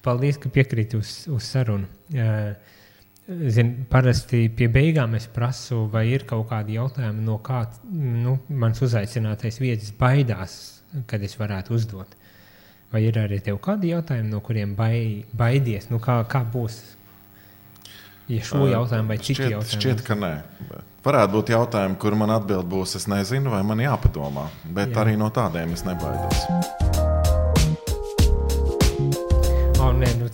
paldies, ka piekrīti uz sarunu. Parasti pie beigām es prasu, vai ir kaut kādi jautājumi, no kā mans uzaicinātais viesis baidās, kad es varētu uzdot. Vai ir arī tev kādi jautājumi, no kuriem baidies? Kā būs? Ja šo jautājumu vai citu jautājumu? Šķiet, ka nē. Varētu būt jautājumi, kur man atbild būs, es nezinu, vai man jāpadomā. Bet arī no tādiem es nebaidos.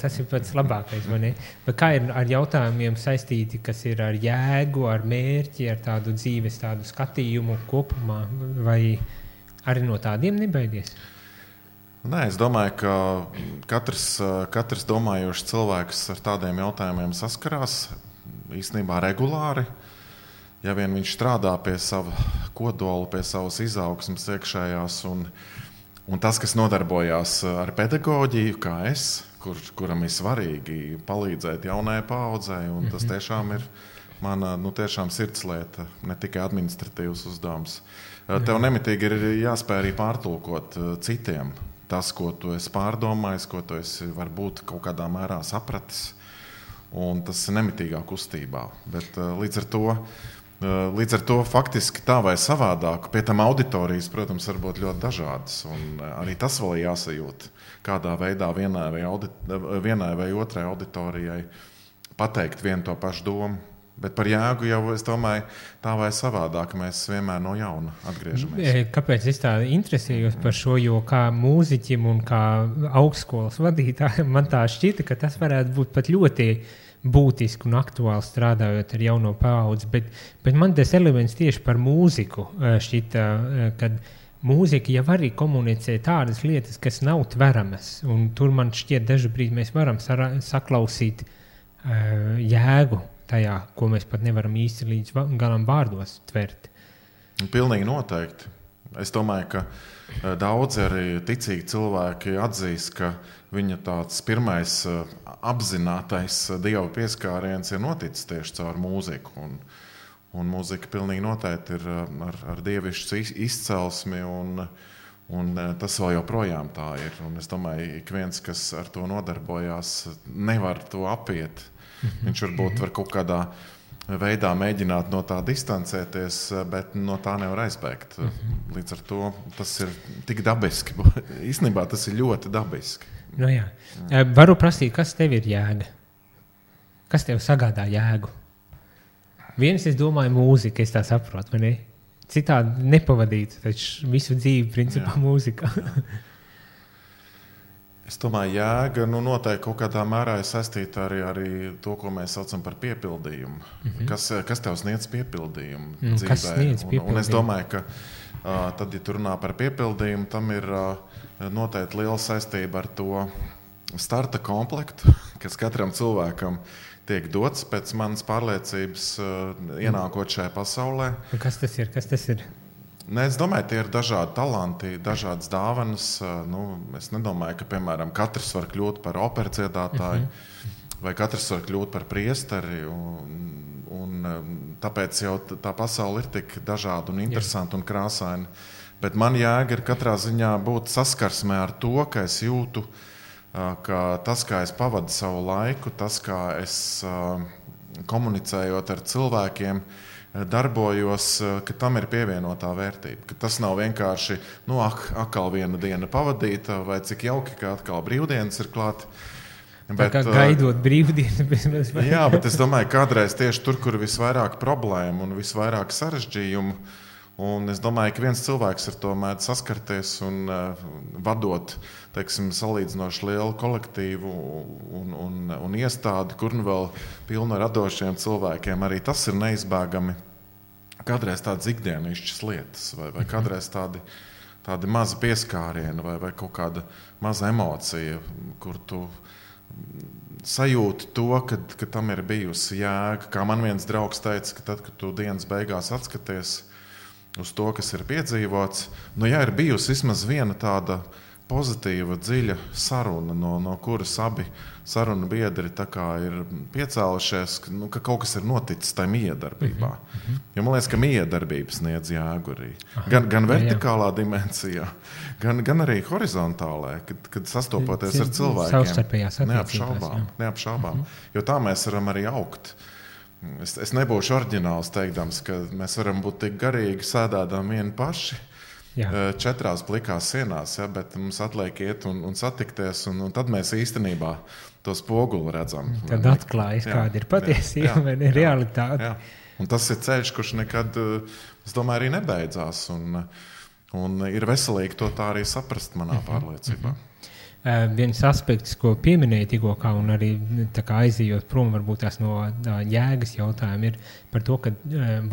Tas ir pats labākais, vai ne? Bet kā ir ar jautājumiem saistīti, kas ir ar jēgu, ar mērķi, ar tādu dzīves, tādu skatījumu kopumā, vai arī no tādiem nebaidies? Nē, es domāju, ka katrs domājošs cilvēks ar tādiem jautājumiem saskarās īstenībā regulāri. Ja vien viņš strādā pie sava kodola, pie savas izaugsmes iekšējās un tas, kas nodarbojās ar pedagoģiju, kā es, kuram ir svarīgi palīdzēt jaunajai paaudzei, un tas tiešām ir mana tiešām sirdslieta, ne tikai administratīvs uzdevums. Tev nemitīgi ir jāspēj arī pārtulkot citiem tas, ko tu esi pārdomājis, ko tu esi varbūt kaut kādā mērā sapratis, un tas ir nemitīgā kustībā. Bet līdz ar to faktiski tā vai savādāk, pie tam auditorijas, protams, var būt ļoti dažādas, un arī tas vēl jāsajūt, kādā veidā vienai vai otrai auditorijai pateikt vienu to pašu domu. Bet par jēgu jau, es domāju, tā vai savādāk mēs vienmēr no jauna atgriežamies. Kāpēc es tā interesējos par šo, jo kā mūziķim un kā augstskolas vadītājam man tā šķita, ka tas varētu būt pat ļoti būtiski un aktuāli strādājot ar jauno paudzi, bet man tas elements tieši par mūziku šķita, kad mūzika jau arī komunicē tādas lietas, kas nav tveramas, un tur man šķiet dažu brīdi mēs varam saklausīt jēgu tajā, ko mēs pat nevaram īsti līdz galam vārdos tvert. Pilnīgi noteikti. Es domāju, ka daudzi arī ticīgi cilvēki atzīst, ka viņa tāds pirmais apzinātais Dieva pieskāriens ir noticis tieši caur mūziku. Un mūzika pilnīgi noteikti ir ar dievišķu izcelsmi, un tas vēl joprojām tā ir. Un es domāju, ik viens, kas ar to nodarbojās, nevar to apiet. Viņš varbūt var kaut kādā veidā mēģināt no tā distancēties, bet no tā nevar aizbēgt. Līdz ar to tas ir tik dabiski. Īstenībā tas ir ļoti dabiski. Nu jā. Varu prasīt, kas tev ir jēga? Kas tev sagādā jēgu? Viens, es domāju, mūzika, es tā saprotu, vai ne? Citādi nepavadītu, taču visu dzīvi principā mūzika. Es domāju, jēga noteikti kaut kādā mērā ir saistīta arī to, ko mēs saucam par piepildījumu. Kas tev sniedz piepildījumu dzīvē? Kas sniedz piepildījumu? Un es domāju, ka tad, ja tu runā par piepildījumu, tam ir noteikti liela saistība ar to starta komplektu, kas katram cilvēkam tiek dots pēc manas pārliecības ienākot šajā pasaulē. Kas tas ir? Es domāju, tie ir dažādi talanti, dažādas dāvanas. Es nedomāju, ka, piemēram, katrs var kļūt par operas dziedātāju, vai katrs var kļūt par priesteri. Un tāpēc jau tā pasaule ir tik dažāda un interesanta un krāsaina. Bet man jēga ir katrā ziņā būt saskarsmē ar to, ka es jūtu, ka tas, kā es pavadu savu laiku, tas, kā es komunicējot ar cilvēkiem, darbojos, ka tam ir pievienotā vērtība. Ka tas nav vienkārši, atkal viena diena pavadīta, vai cik jauki, ka atkal brīvdienas ir klāt. Bet, gaidot brīvdienas. Jā, bet es domāju, kādreiz tieši tur, kur visvairāk problēmu un visvairāk sarežģījumu, un es domāju, ka viens cilvēks ar to mēdz saskarties un vadot, salīdzinoši lielu kolektīvu un iestādi, kur vēl pilnu radošiem cilvēkiem, arī tas ir neizbēgami. Kādreiz tādas ikdienišķas lietas, vai kādreiz tādi mazi pieskārieni, vai kaut kāda maza emocija, kur tu sajūti to, ka tam ir bijusi jēga. Kā man viens draugs teica, ka tad, kad tu dienas beigās atskaties uz to, kas ir piedzīvots, ja ir bijusi vismaz viena tāda pozitīva, dziļa saruna, no kuras abi sarunu biedri tā kā ir piecēlušies, ka kaut kas ir noticis tajā miedarbībā. Jo man liekas, ka miedarbības sniedz jēgu arī. Gan vertikālā dimensijā, gan arī horizontālā, kad sastopoties ar cilvēkiem. Neapšaubām. Jo tā mēs varam arī augt. Es nebūšu oriģināls teikdams, ka mēs varam būt tik garīgi sēdādām vieni paši. Jā. 4 plikās sienās, ja, bet mums atliek iet un satikties, un tad mēs īstenībā to spoguli redzam. Tad atklājas, kāda ir patiesība, vai ne realitāte. Jā. Un tas ir ceļš, kurš nekad, es domāju, arī nebeidzās, un ir veselīgi to tā arī saprast manā pārliecībā. Viens aspekts, ko pieminēja tikko, un arī tā kā aizījot prom varbūt tās no jēgas jautājuma, ir par to, ka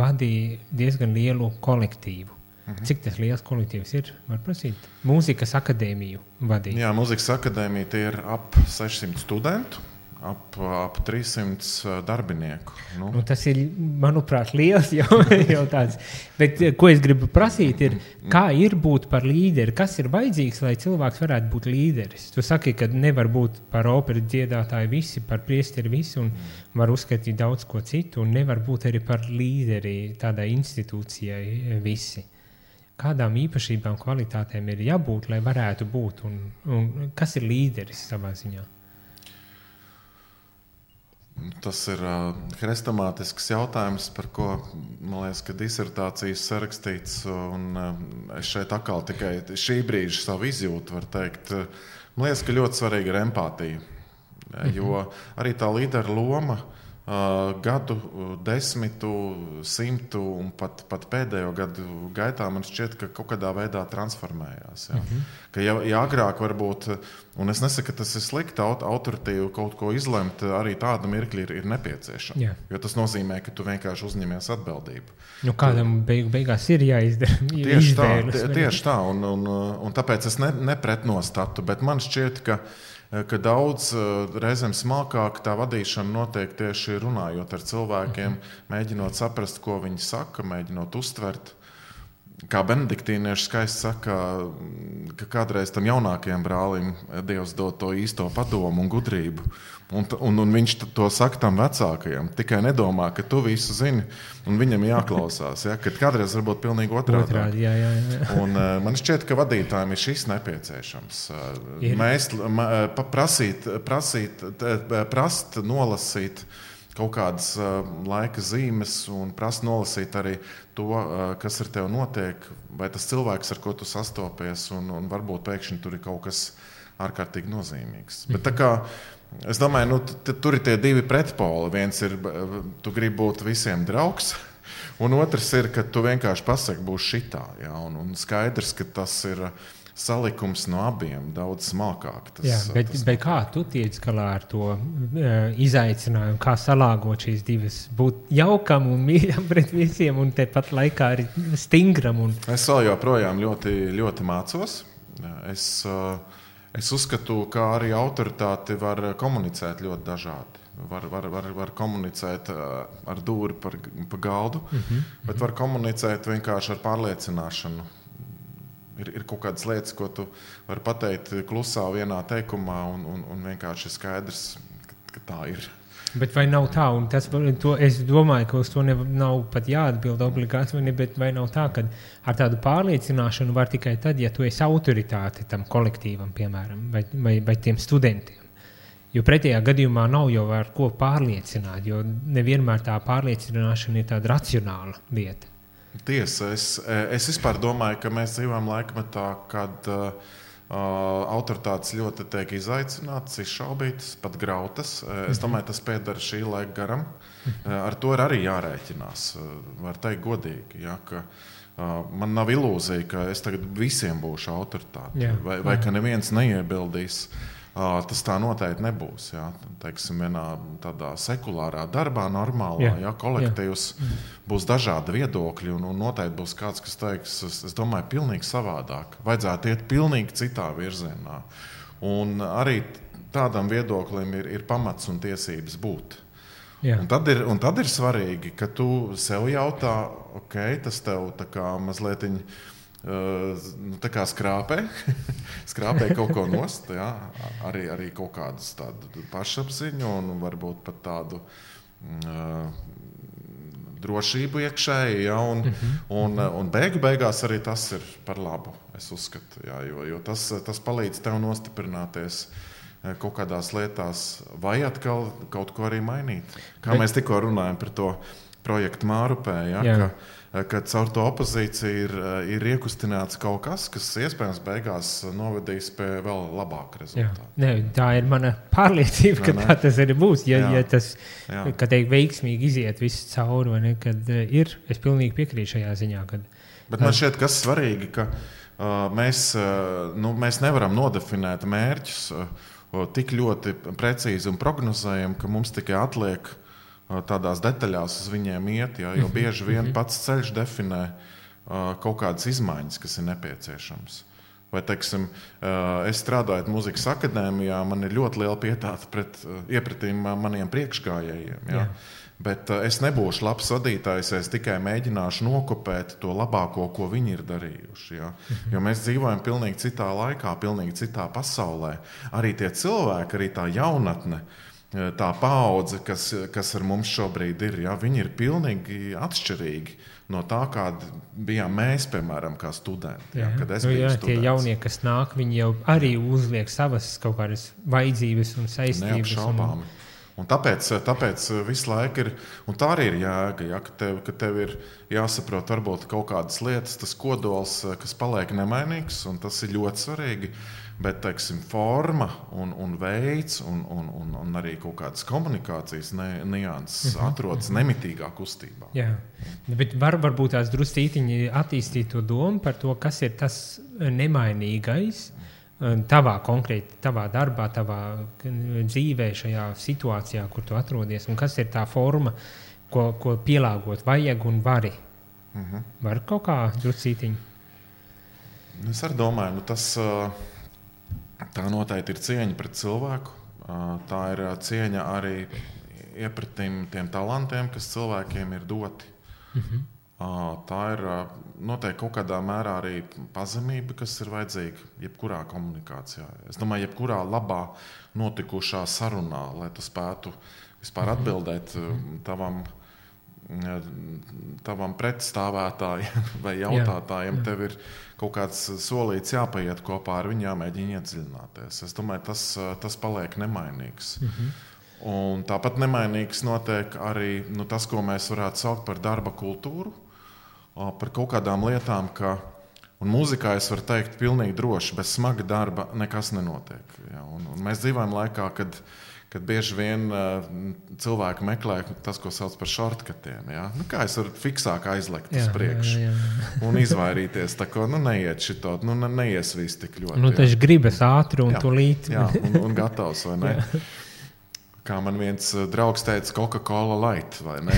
vadīja diezgan lielu kolektīvu. Cik tas liels kolektīvs ir? Var prasīt? Mūzikas akadēmiju vadīt. Jā, mūzikas akadēmija tie ir ap 600 studentu, ap 300 darbinieku. Tas ir, manuprāt, liels jau tāds. Bet ko es gribu prasīt ir, kā ir būt par līderi? Kas ir vajadzīgs, lai cilvēks varētu būt līderis? Tu saki, ka nevar būt par operu dziedātāju visi, par priesteri visi, un var uzskatīt daudz ko citu, un nevar būt arī par līderi tādai institūcijai visi. Kādām īpašībām, kvalitātēm ir jābūt, lai varētu būt? Un kas ir līderis savā ziņā? Tas ir hrestomātisks jautājums, par ko, man liekas, ka disertācijas sarakstīts. Un es šeit atkal tikai šī brīža savu izjūtu var teikt. Man liekas, ka ļoti svarīga ir empātija. Jo arī tā līdera loma gadu, 10, 100 un pat pēdējo gadu gaitā man šķiet, ka kaut kādā veidā transformējās. Ja? Ka ja agrāk varbūt, un es nesaku, ka tas ir slikti, autoritīvi kaut ko izlemt, arī tāda mirkļa ir nepieciešama. Jā. Jo tas nozīmē, ka tu vienkārši uzņemies atbildību. Kādam beigās ir jāizdara izvēles. Tieši tā, un tāpēc es nepretnostatu, bet man šķiet, ka daudz reizēm smalkāk tā vadīšana notiek tieši runājot ar cilvēkiem, mēģinot saprast, ko viņi saka, mēģinot uztvert. Kā benediktīnieši skaisti saka, ka kādreiz tam jaunākajam brālim Dievs dod to īsto padomu un gudrību. Un viņš to saka tam vecākajam. Tikai nedomā, ka tu visu zini un viņam jāklausās. Ja? Kad kādreiz varbūt pilnīgi otrādi. Jā. Un man šķiet, ka vadītājiem ir šis nepieciešams. Mēs prast nolasīt kaut kādas laika zīmes un prast nolasīt arī to, kas ar tevi notiek, vai tas cilvēks, ar ko tu sastopies, un varbūt pēkšņi tur ir kaut kas ārkārtīgi nozīmīgs. Bet tā kā es domāju, tur ir tie divi pretpoli. Viens ir, tu gribi būt visiem draugs, un otrs ir, ka tu vienkārši pasaki, būs šitā. Ja? Un skaidrs, ka tas ir salikums no abiem, daudz smalkāk. Bet kā tu tiec galā ar to izaicinājumu, kā salāgot šīs divas, būt jaukam un mīļam pret visiem, un tepat laikā arī stingram? Es vēl joprojām ļoti, ļoti mācos. Es uzskatu, ka arī autoritāti var komunicēt ļoti dažādi. Var komunicēt ar dūri pa galdu, bet var komunicēt vienkārši ar pārliecināšanu. Ir kaut kādas lietas, ko tu vari pateikt klusā vienā teikumā, un vienkārši ir skaidrs, ka tā ir. Bet vai nav tā, un es domāju, ka uz to nav pat jāatbild obligāti, bet vai nav tā, ka ar tādu pārliecināšanu var tikai tad, ja tu esi autoritāte tam kolektīvam, piemēram, vai tiem studentiem. Jo pretējā gadījumā nav jau ar ko pārliecināt, jo nevienmēr tā pārliecināšana ir tāda racionāla lieta. Tiesa, es vispār domāju, ka mēs dzīvojam laikmetā, kad autoritātes ļoti tiek izaicinātas, izšaubītas, pat grautas. Es domāju, tas pieder šī laika garam. Ar to ir arī jārēķinās, var teikt godīgi, ja, ka man nav ilūzija, ka es tagad visiem būšu autoritāte, vai ka neviens neiebildīs. Tas tā noteikti nebūs. Ja? Teiksim, vienā tādā sekulārā darbā, normālā, ja, kolektīvs būs dažādi viedokļi, un noteikti būs kāds, kas teiks, es domāju, pilnīgi savādāk. Vajadzētu iet pilnīgi citā virzienā. Un arī tādam viedoklim ir pamats un tiesības būt. Un tad ir svarīgi, ka tu sev jautā, ok, tas tev tā kā mazliet tā kā skrāpē kaut ko nost, jā, arī kaut kādus tādu pašapziņu un varbūt pat tādu drošību iekšēji, ja, un beigās arī tas ir par labu, es uzskatu, jā, jo tas palīdz tev nostiprināties kaut kādās lietās, vai atkal kaut ko arī mainīt. Kā mēs tikko runājam par to projektu Mārupē, ja, ka caur to opozīciju ir iekustināts kaut kas iespējams beigās novedīs pie vēl labāka rezultāta. Ne, tā ir mana pārliecība, ka tā tas arī būs. Ja tas, kad veiksmīgi iziet viss cauri, vai ne, kad es pilnīgi piekrītu šajā ziņā. Bet man šķiet, kas svarīgi, ka mēs nevaram nodefinēt mērķus tik ļoti precīzi un prognozējam, ka mums tikai atliek tādās detaļās uz viņiem iet, jo bieži vien pats ceļš definē kaut kādas izmaiņas, kas ir nepieciešams. Vai, teiksim, es strādāju Mūzikas akadēmijā, man ir ļoti liela pietāta iepratīm maniem priekšgājējiem. Ja? Bet es nebūšu labs vadītājs, es tikai mēģināšu nokopēt to labāko, ko viņi ir darījuši. Ja? Jo mēs dzīvojam pilnīgi citā laikā, pilnīgi citā pasaulē. Arī tie cilvēki, arī tā jaunatne, tā paudze, kas ar mums šobrīd ir, ja, viņi ir pilnīgi atšķirīgi no tā, kāda bijām mēs, piemēram, kā studenti. Ja, kad es biju students. Tie jaunie, kas nāk, viņi jau arī uzliek savas kaut kādas vajadzības un saistības. Neapšaubāmi. Un tāpēc visu laiku ir, un tā arī ir jēga, ja, ka tev ir jāsaprot varbūt kaut kādas lietas, tas kodols, kas paliek nemainīgs, un tas ir ļoti svarīgi. Bet, teiksim, forma un veids un arī kaut kādas komunikācijas nianses atrodas nemitīgā kustībā. Jā, bet varbūt tās druscītiņi attīstīt to domu par to, kas ir tas nemainīgais tavā darbā, tavā dzīvē, šajā situācijā, kur tu atrodies, un kas ir tā forma, ko pielāgot vajag un vari. Var kaut kā druscītiņi? Es arī domāju, tā noteikti ir cieņa pret cilvēku. Tā ir cieņa arī iepratīm tiem talantiem, kas cilvēkiem ir doti. Tā ir noteikti kaut kādā mērā arī pazemība, kas ir vajadzīga jebkurā komunikācijā. Es domāju, jebkurā labā notikušā sarunā, lai tu spētu vispār atbildēt tavam pretstāvētājiem vai jautātājiem, tev ir kaut kāds solīts jāpaiet kopā ar viņu, jāmēģina iedziļināties. Es domāju, tas paliek nemainīgs. Un tāpat nemainīgs notiek arī tas, ko mēs varētu saukt par darba kultūru, par kaut kādām lietām, un mūzikā es varu teikt pilnīgi droši, bez smaga darba nekas nenotiek. Ja? Un mēs dzīvojam laikā, kad bieži vien cilvēki meklē tas, ko sauc par shortcutiem. Ja? Kā es varu fiksāk aizlekt uz priekšu un izvairīties, tā ko neiet šito, neies viss tik ļoti. Taču gribas ātri un tūlīt. Jā, un gatavs, vai ne? Kā man viens draugs teica, Coca-Cola Light, vai ne?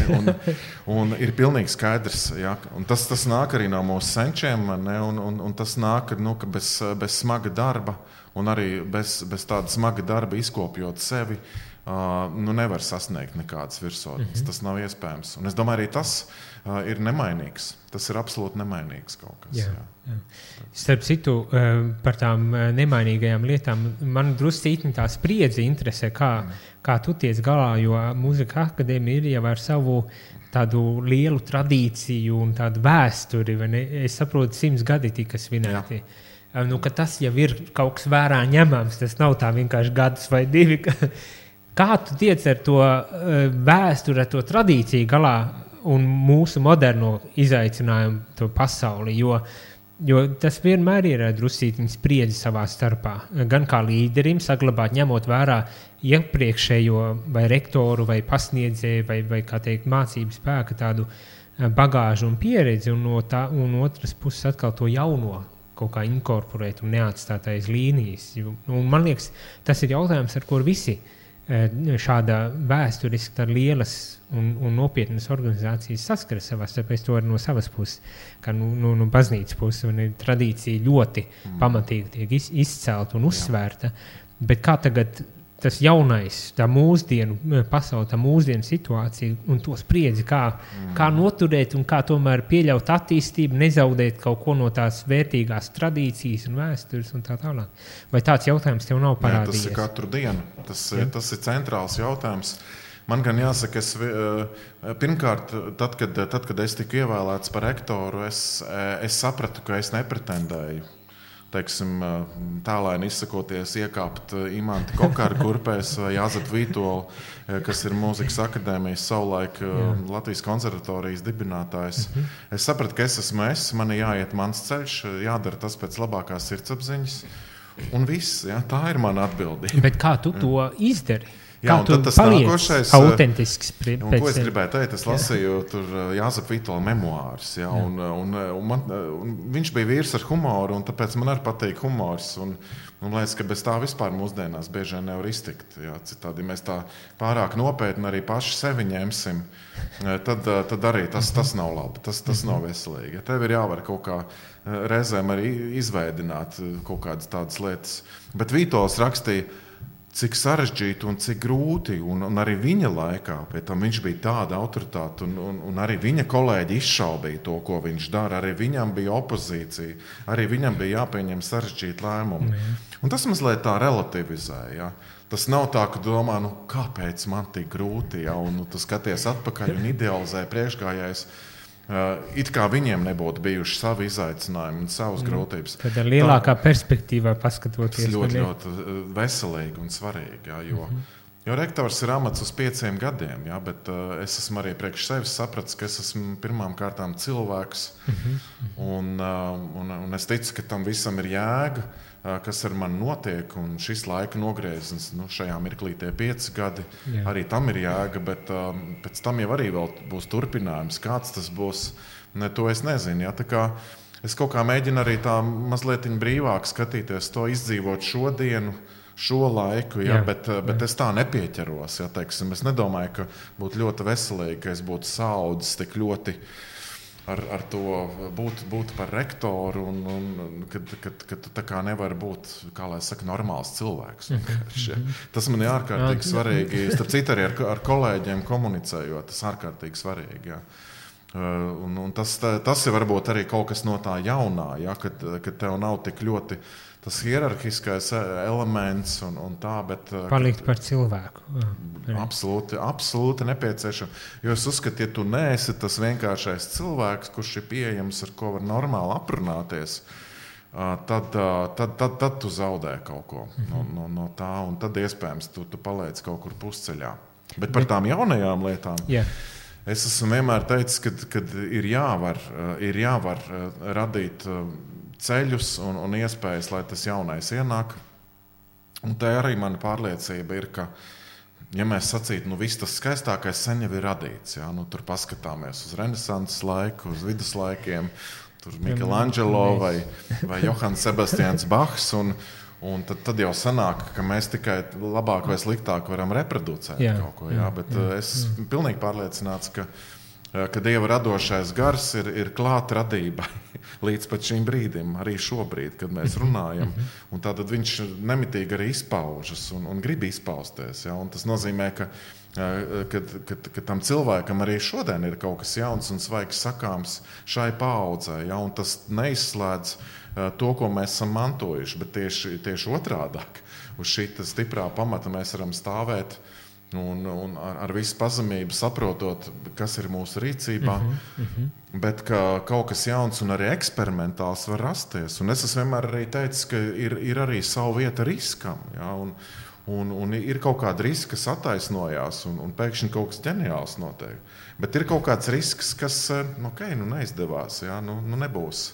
Un ir pilnīgi skaidrs, ja? Un tas nāk arī no mūsu senčiem, ne? Un tas nāk, ka bez smaga darba un arī bez tāda smaga darba izkopjot sevi, nevar sasniegt nekādas virsotnes. Tas nav iespējams. Un es domāju, arī tas ir nemainīgs. Tas ir absolūti nemainīgs kaut kas. Jā. Starp citu, par tām nemainīgajām lietām, man druscītni tā spriedze interesē, kā tu tiec galā, jo Mūzikas akadēmija ir jau ar savu tādu lielu tradīciju un tādu vēsturi, vai ne? Es saprotu, 100 gadi tika svinēti. Ka tas jau ir kaut kas vērā ņemams, tas nav tā vienkārši gadus vai 2. Kā tu tiec ar to vēsturi, ar to tradīciju galā un mūsu moderno izaicinājumu to pasauli, jo tas vienmēr ir druscītiņa spriedzi savā starpā. Gan kā līderim saglabāt, ņemot vērā iepriekšējo vai rektoru vai pasniedzēju vai kā teikt, mācību spēka tādu bagāžu un pieredzi, un otras puses atkal to jauno kaut kā inkorporēt un neatstāt aiz līnijas. Un man liekas, tas ir jautājums, ar kur visi šāda vēsturiski tā lielas un nopietnas organizācijas saskaras savā starpā. Es to no savas puses, kā no baznīcas puses, un tradīcija ļoti pamatīgi tiek izcelta un uzsvērta. Bet kā tagad tas jaunais, tā mūsdienu pasaule, tā mūsdienu situācija un to spriedzi, kā noturēt un kā tomēr pieļaut attīstību, nezaudēt kaut ko no tās vērtīgās tradīcijas un vēstures un tā tālāk. Vai tāds jautājums tev nav parādījies? Tas ir katru dienu. Tas ir centrāls jautājums. Man gan jāsaka, pirmkārt, tad, kad es tiku ievēlēts par rektoru, es sapratu, ka es nepretendēju. Teiksim, tālēni izsakoties, iekāpt Imanti Kokāra kurpēs vai Jāzepu Vītolu, kas ir mūzikas akadēmijas savulaik Latvijas konservatorijas dibinātājs. Es sapratu, ka es esmu man jāiet mans ceļš, jādara tas pēc labākās sirdsapziņas. Un viss, tā ir mana atbildība. Bet kā tu to izdari? Jā, kā tu tas paliec autentisks? Ko es gribēju teikt? Es lasīju tur Jāzepa Vītola memoārus. Un viņš bija vīrs ar humoru, un tāpēc man arī patīk humors. Un liekas, ka bez tā vispār mūsdienās bieži vien nevar iztikt. Jā, citādi, ja mēs tā pārāk nopietni arī paši sevi ņemsim, tad arī tas nav labi, tas nav veselīgi. Ja tev ir jāvar kaut kā reizēm arī izveidināt kaut kādas tādas lietas. Bet Vītols rakstīja, cik sarežģīti un cik grūti, un arī viņa laikā, pie tam viņš bija tāda autoritāte, un arī viņa kolēģi izšaubīja to, ko viņš dara, arī viņam bija opozīcija, arī viņam bija jāpieņem sarežģīti lēmumi. Un tas mazliet tā relativizēja, ja? Tas nav tā, ka domā, kāpēc man tik grūti, ja? Un tu skaties atpakaļ un idealizē priekšgājējs, it kā viņiem nebūtu bijuši savi izaicinājumi un savas grūtības. Tad ar lielākā perspektīvā paskatoties. Tas ļoti veselīgi un svarīgi, jā, jo rektors ir amats uz 5 gadiem, jā, bet es esmu arī priekš sevis sapratis, ka es esmu pirmām kārtām cilvēks, un es ticu, ka tam visam ir jēga, kas ar mani notiek, un šis laika nogrieziens, šajā mirklī tie 5 gadi, arī tam ir jēga, bet pēc tam jau arī vēl būs turpinājums. Kāds tas būs, to es nezinu. Ja? Tā kā es kaut kā mēģinu arī tā mazliet brīvāk skatīties, to izdzīvot šodienu, šo laiku, ja? Bet es tā nepieķeros. Ja? Teiksim, es nedomāju, ka būtu ļoti veselīgi, ka es būtu saudzis tik ļoti ar to būt par rektoru, un kad tā kā nevar būt, kā lai saka, normāls cilvēks. Tas man ir ārkārtīgi svarīgi. Starp citu arī ar kolēģiem komunicējot, tas ārkārtīgi svarīgi. Ja. Un tas ir varbūt arī kaut kas no tā jaunā, ja, kad tev nav tik ļoti tas hierarhiskais elements un tā, bet palikt par cilvēku. Absolūti nepieciešams. Jo es uzskatu, ja tu neesi tas vienkāršais cilvēks, kurš ir pieejams, ar ko var normāli aprunāties, tad tu zaudē kaut ko no tā, un tad iespējams tu paliec kaut kur pusceļā. Bet par tām jaunajām lietām. Es esmu vienmēr teicis, ka ir jāvar radīt ceļus un iespējas, lai tas jaunais ienāk. Un tā arī mana pārliecība ir, ka, ja mēs sacītu, viss tas skaistākais sen jau ir radīts. Ja? Tur paskatāmies uz renesanses laiku, uz viduslaikiem, tur Michelangelo vai Johans Sebastians Bachs, un tad jau sanāk, ka mēs tikai labāk vai sliktāk varam reproducēt kaut ko. Ja? Bet es esmu pilnīgi pārliecināts, ka Dieva radošais gars ir klāt radībai līdz pat šim brīdim, arī šobrīd, kad mēs runājam. Un tātad viņš nemitīgi arī izpaužas un grib izpausties. Ja? Un tas nozīmē, ka tam cilvēkam arī šodien ir kaut kas jauns un svaigs sakāms šai paaudzei. Ja? Un tas neizslēdz to, ko mēs esam mantojuši, bet tieši otrādāk. Uz šī stiprā pamata mēs varam stāvēt un ar visu pazemību saprotot, kas ir mūsu rīcībā, bet ka kaut kas jauns un arī eksperimentāls var rasties. Un es esmu vienmēr arī teicis, ka ir arī savu vieta riskam, ja? Un ir kaut kāda riska, kas attaisnojās, un pēkšņi kaut kas ģeniāls notiek. Bet ir kaut kāds risks, kas neizdevās, ja? Nebūs.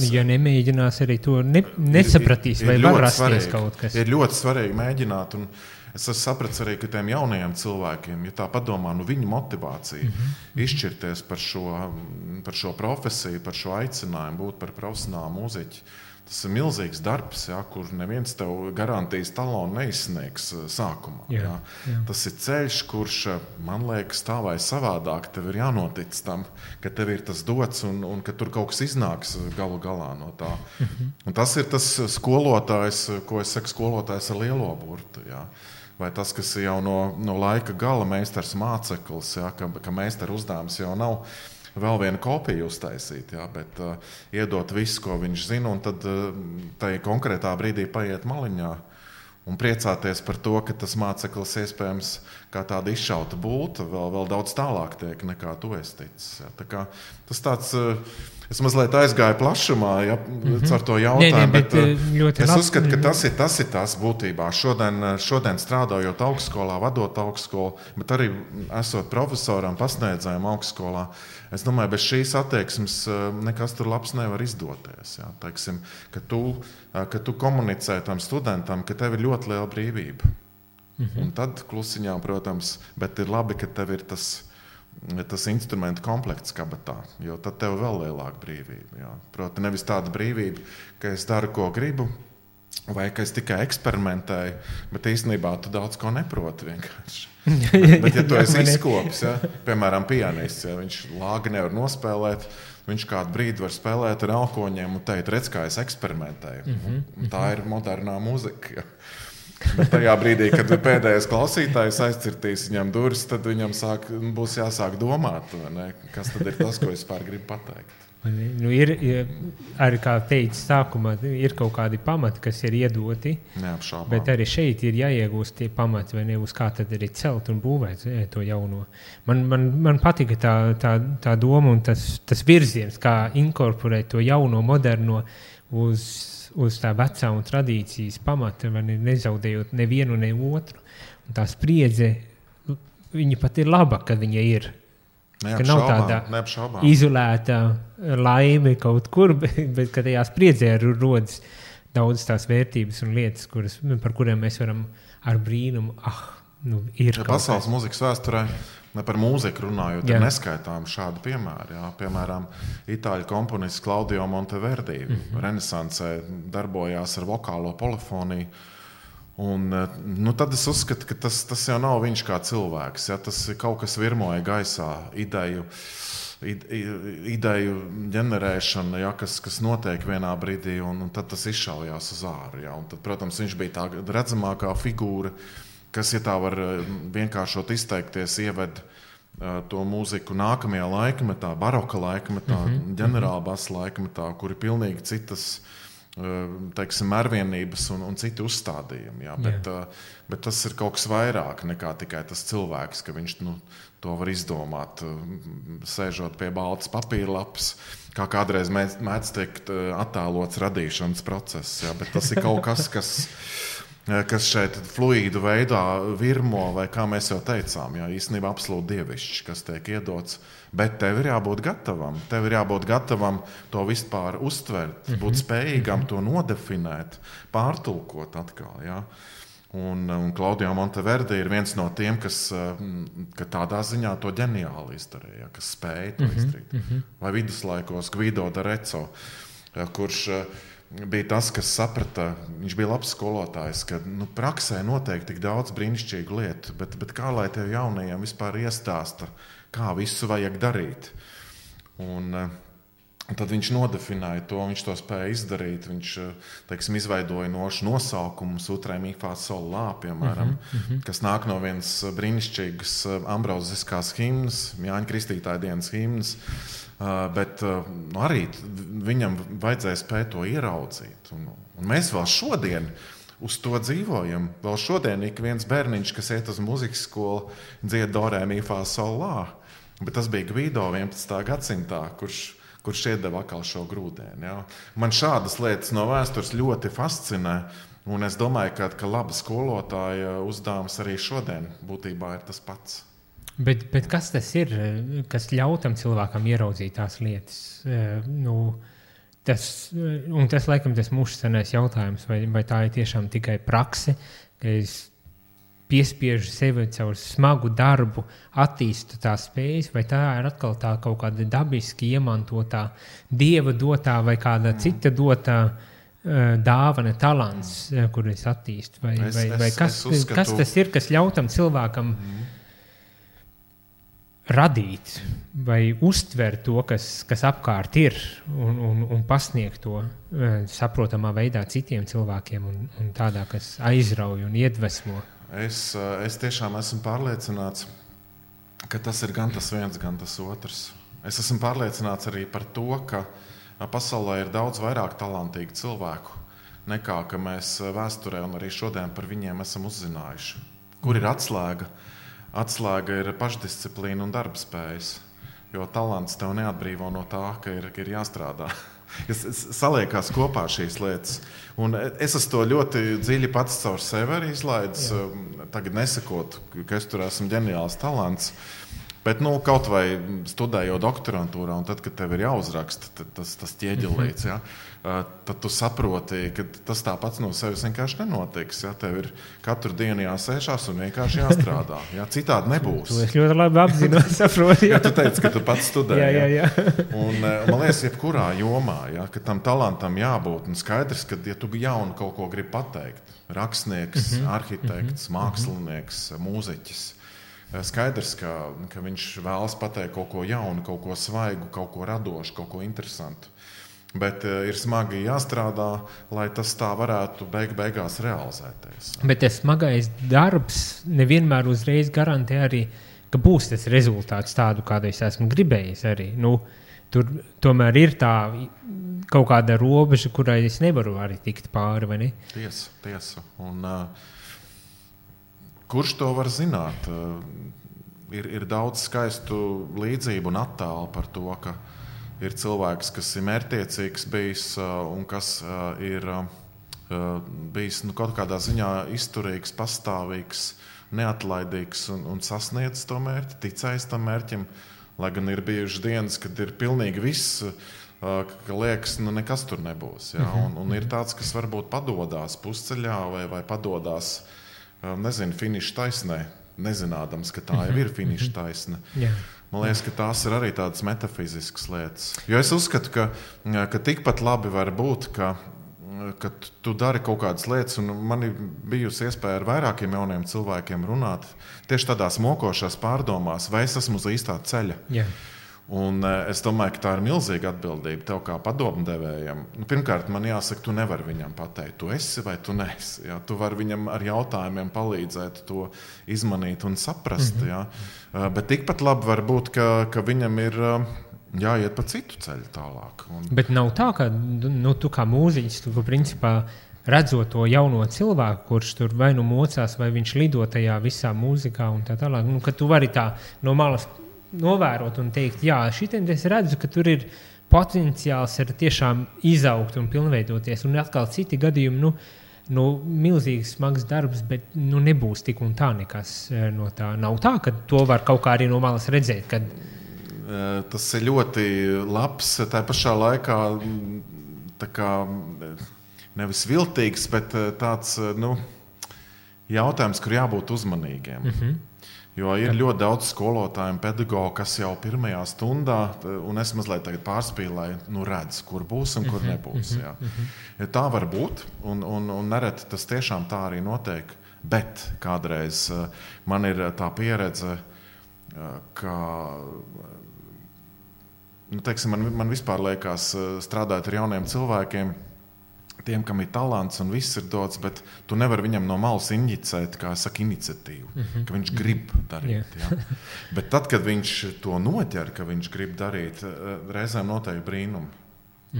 Ja nemēģinās arī to nesapratīs, vai var rasties kaut kas. Ir ļoti svarīgi mēģināt, un es sapratu arī, ka tiem jaunajiem cilvēkiem, ja tā padomā, viņu motivācija izšķirties par šo profesiju, par šo aicinājumu būt par profesionālu mūziķi, Tas ir milzīgs darbs, ja, kur neviens tev garantijas talonu neizsniegs sākumā. Ja. Tas ir ceļš, kurš, man liekas, tā vai savādāk tev ir jānotic tam, ka tev ir tas dots un ka tur kaut kas iznāks galu galā no tā. Un tas ir tas skolotājs, ko es saku, skolotājs ar lielo burtu. Ja. Vai tas, kas jau no laika gala meistars māceklis, ja, ka meistara uzdevums jau nav vēl vienu kopiju uztaisīt, jā, bet iedot visu, ko viņš zina, un tad tai konkrētā brīdī paiet maliņā un priecāties par to, ka tas māceklis iespējams kā tāda izšauta būta vēl daudz tālāk tiek nekā tu esi ticis. Jā. Tā kā tas tāds, es mazliet aizgāju plašumā, ja, ar to jautājumu, bet es uzskatu, ka tas ir tas būtībā. Šodien strādājot augstskolā, vadot augstskolu, bet arī esot profesoram, pasniedzējam augstskolā, es domāju, bez šīs attieksmes nekas tur labs nevar izdoties. Jā. Teiksim, ka tu komunicē tam studentam, ka tev ir ļoti liela brīvība. Un tad klusiņā, protams, bet ir labi, ka tev ir tas instrumentu komplekts kabatā, jo tad tev vēl lielāka brīvība. Jā. Proti, nevis tāda brīvība, ka es daru, ko gribu, vai ka es tikai eksperimentēju, bet īstenībā tu daudz ko neproti vienkārši. Bet ja tu esi izkopis, ja, piemēram, pianists, ja, viņš lāgi nevar nospēlēt, viņš kādu brīdi var spēlēt ar elkoņiem un teikt, redz, kā es eksperimentēju. Tā ir modernā muzika. Ja. Bet tajā brīdī, kad pēdējais klausītājs aizcirtīs viņam durvis, tad viņam būs jāsāk domāt, ne? Kas tad ir tas, ko es pār gribu pateikt. Nu, ir arī, kā teicu sākumā, ir kaut kādi pamati, kas ir iedoti, neapšaubām. Bet arī šeit ir jāiegūst tie pamati, vai ne, uz kā tad arī celt un būvēt to jauno. Man patika tā doma un tas virziens, kā inkorporēt to jauno, moderno uz tā vecā un tradīcijas pamata, vai ne, nezaudējot nevienu, ne otru. Un tā spriedze, viņa pat ir laba, kad viņa ir. Ka nav tāda izolēta laime kaut kur, bet ka tajā spriedzē rodas daudz tās vērtības un lietas, par kuriem mēs varam ar brīnumu, ir kaut pasaules mūzikas vēsturē, ne par mūziku runājot, ir neskaitām šādi piemēri. Jā. Piemēram, itāļu komponists Claudio Monteverdi renesansē darbojās ar vokālo polifoniju. Un, tad es uzskatu, ka tas jau nav viņš kā cilvēks. Ja? Tas ir kaut kas virmoja gaisā, ideju ģenerēšana, ja? kas notiek vienā brīdī, un tad tas izšaujās uz āru. Ja? Un tad, protams, viņš bija tā redzamākā figūra, kas, ja tā var vienkāršot izteikties, ieved to mūziku nākamajā laikmetā, baroka laikmetā, ģenerālbasa laikmetā, kur ir pilnīgi citas teiksim, mērvienības un citi uzstādījumi. Jā. Bet tas ir kaut kas vairāk nekā tikai tas cilvēks, ka viņš to var izdomāt, sēžot pie baltas papīra lapas, kā kādreiz mēdz teikt attēlots radīšanas process. Jā. Bet tas ir kaut kas, kas šeit fluīdu veidā virmo, vai kā mēs jau teicām, jā, īstenībā absolūti dievišķi, kas tiek iedots. Bet tev ir jābūt gatavam. Tev ir jābūt gatavam to vispār uztvert, būt spējīgam to nodefinēt, pārtulkot atkal. Ja? Un Claudio Monteverdi ir viens no tiem, kas tādā ziņā to ģeniāli izdarīja, kas spēja to izdarīt. Vai viduslaikos Guido d'Arezzo, kurš bija tas, kas saprata, viņš bija labs skolotājs, ka praksē notiek tik daudz brīnišķīgu lietu, bet kā lai tev jaunajiem vispār iestāsta, kā visu vajag darīt. Un tad viņš nodefinēja to, viņš to spēja izdarīt. Viņš, teiksim, izveidoja nosaukumus Utrē mi fa sol la, piemēram, kas nāk no vienas brīnišķīgas ambroziskās himnas, Jāņa Kristītāja dienas himnas, bet arī viņam vajadzēja spēt to ieraudzīt. Un mēs vēl šodien uz to dzīvojam. Vēl šodien ik viens bērniņš, kas iet uz muzikas skolu, dzied do re mi fa sol la. Bet tas bija Guido 11. gadsimtā, kurš iedeva atkal šo grūdienu. Ja? Man šādas lietas no vēstures ļoti fascinē, un es domāju, ka laba skolotāja uzdevums arī šodien būtībā ir tas pats. Bet kas tas ir, kas ļauj tam cilvēkam ieraudzīt tās lietas? Tas laikam tas mūžsanais jautājums, vai tā ir tiešām tikai prakse, ka es piespiežu sevi caur smagu darbu, attīstu tās spējas, vai tā ir atkal tā kaut kāda dabiski iemantotā, dieva dotā vai kāda cita dotā dāvana, talants, kur es attīstu? Vai kas tas ir, kas ļautam cilvēkam radīt vai uztvert to, kas apkārt ir un pasniegt to saprotamā veidā citiem cilvēkiem un tādā, kas aizrauj un iedvesmo? Es tiešām esmu pārliecināts, ka tas ir gan tas viens, gan tas otrs. Es esmu pārliecināts arī par to, ka pasaulē ir daudz vairāk talantīgu cilvēku, nekā ka mēs vēsturē un arī šodien par viņiem esam uzzinājuši. Kur ir atslēga? Atslēga ir pašdisciplīna un darbspējas, jo talants tev neatbrīvo no tā, ka ir jāstrādā. Saliekās kopā šīs lietas. Un es esmu to ļoti dziļi pats caur sevi arī izlaidis. Tagad nesakot, ka es tur esmu ģeniāls talants, bet kaut vai studējot doktorantūrā, un tad, kad tev ir jāuzraksta tas ķieģelīts, tad tu saproti, ka tas tāpats no sevis vienkārši nenotiks. Tev ir katru dienu jāsēžās un vienkārši jāstrādā. Citādi nebūs. To es ļoti labi apzinos, saprotu. Tu teici, ka tu pats studēji. Jā. Un man liekas, jebkurā jomā, ka tam talantam jābūt. Un skaidrs, ka ja tu jaunu kaut ko gribi pateikt, rakstnieks, arhitekts, mākslinieks, mūziķis, skaidrs, ka viņš vēlas pateikt kaut ko jaunu, kaut ko svaigu, kaut ko radošu, kaut ko interesantu. Bet ir smagi jāstrādā, lai tas tā varētu beigās realizēties. Bet tas smagais darbs nevienmēr uzreiz garantē arī, ka būs tas rezultāts tādu, kādu es esmu gribējis arī. Tur tomēr ir tā kaut kāda robeža, kurai es nevaru arī tikt pāri, vai ne? Tiesa. Un kurš to var zināt? Ir daudz skaistu līdzību un attēlu par to, ka ir cilvēks, kas ir mērķtiecīgs bijis un kas ir bijis kaut kādā ziņā izturīgs, pastāvīgs, neatlaidīgs un sasniedzis to mērķi, ticējis tam mērķim, lai gan ir bijušas dienas, kad ir pilnīgi viss, ka liekas, nekas tur nebūs. Un ir tāds, kas varbūt padodās pusceļā vai padodās, finiša taisnē, nezinādams, ka tā jau ir finiša taisne. Man liekas, ka tās ir arī tādas metafiziskas lietas. Jo es uzskatu, ka tikpat labi var būt, ka tu dari kaut kādas lietas, un man ir bijusi iespēja ar vairākiem jauniem cilvēkiem runāt tieši tādās mokošās pārdomās, vai es esmu uz īstā ceļa. Un es domāju, ka tā ir milzīga atbildība tev kā padomdevējam. Pirmkārt, man jāsaka, tu nevari viņam pateikt, tu esi vai tu neesi. Tu vari viņam ar jautājumiem palīdzēt to izmanīt un saprast. Bet tikpat labi var būt, ka viņam ir jāiet pa citu ceļu tālāk. Bet nav tā, ka tu kā mūziķis, tu principā redzot to jauno cilvēku, kurš tur vai mocās, vai viņš lido tajā visā mūzikā un tā tālāk, ka tu vari tā no malas novērot un teikt, šitien es redzu, ka tur ir potenciāls ir tiešām izaugt un pilnveidoties. Un atkal citi gadījumi, milzīgs smags darbs, bet nebūs tik un tā nekas no tā. Nav tā, ka to var kaut kā arī no malas redzēt. Kad... Tas ir ļoti labs, tā pašā laikā tā kā nevis viltīgs, bet tāds jautājums, kur jābūt uzmanīgiem. Jo ir ļoti daudz skolotāju un pedagogu, kas jau pirmajā stundā, un es mazliet tagad pārspīlēju, redz, kur būs un kur nebūs. Tā var būt, un nereti tas tiešām tā arī notiek. Bet kādreiz man ir tā pieredze, ka man vispār liekas strādāt ar jauniem cilvēkiem, tiem, kam ir talants un viss ir dots, bet tu nevari viņam no malas injicēt, kā saka, iniciatīvu, ka viņš grib darīt. Bet tad, kad viņš to noķer, ka viņš grib darīt, reizēm notiek brīnumi.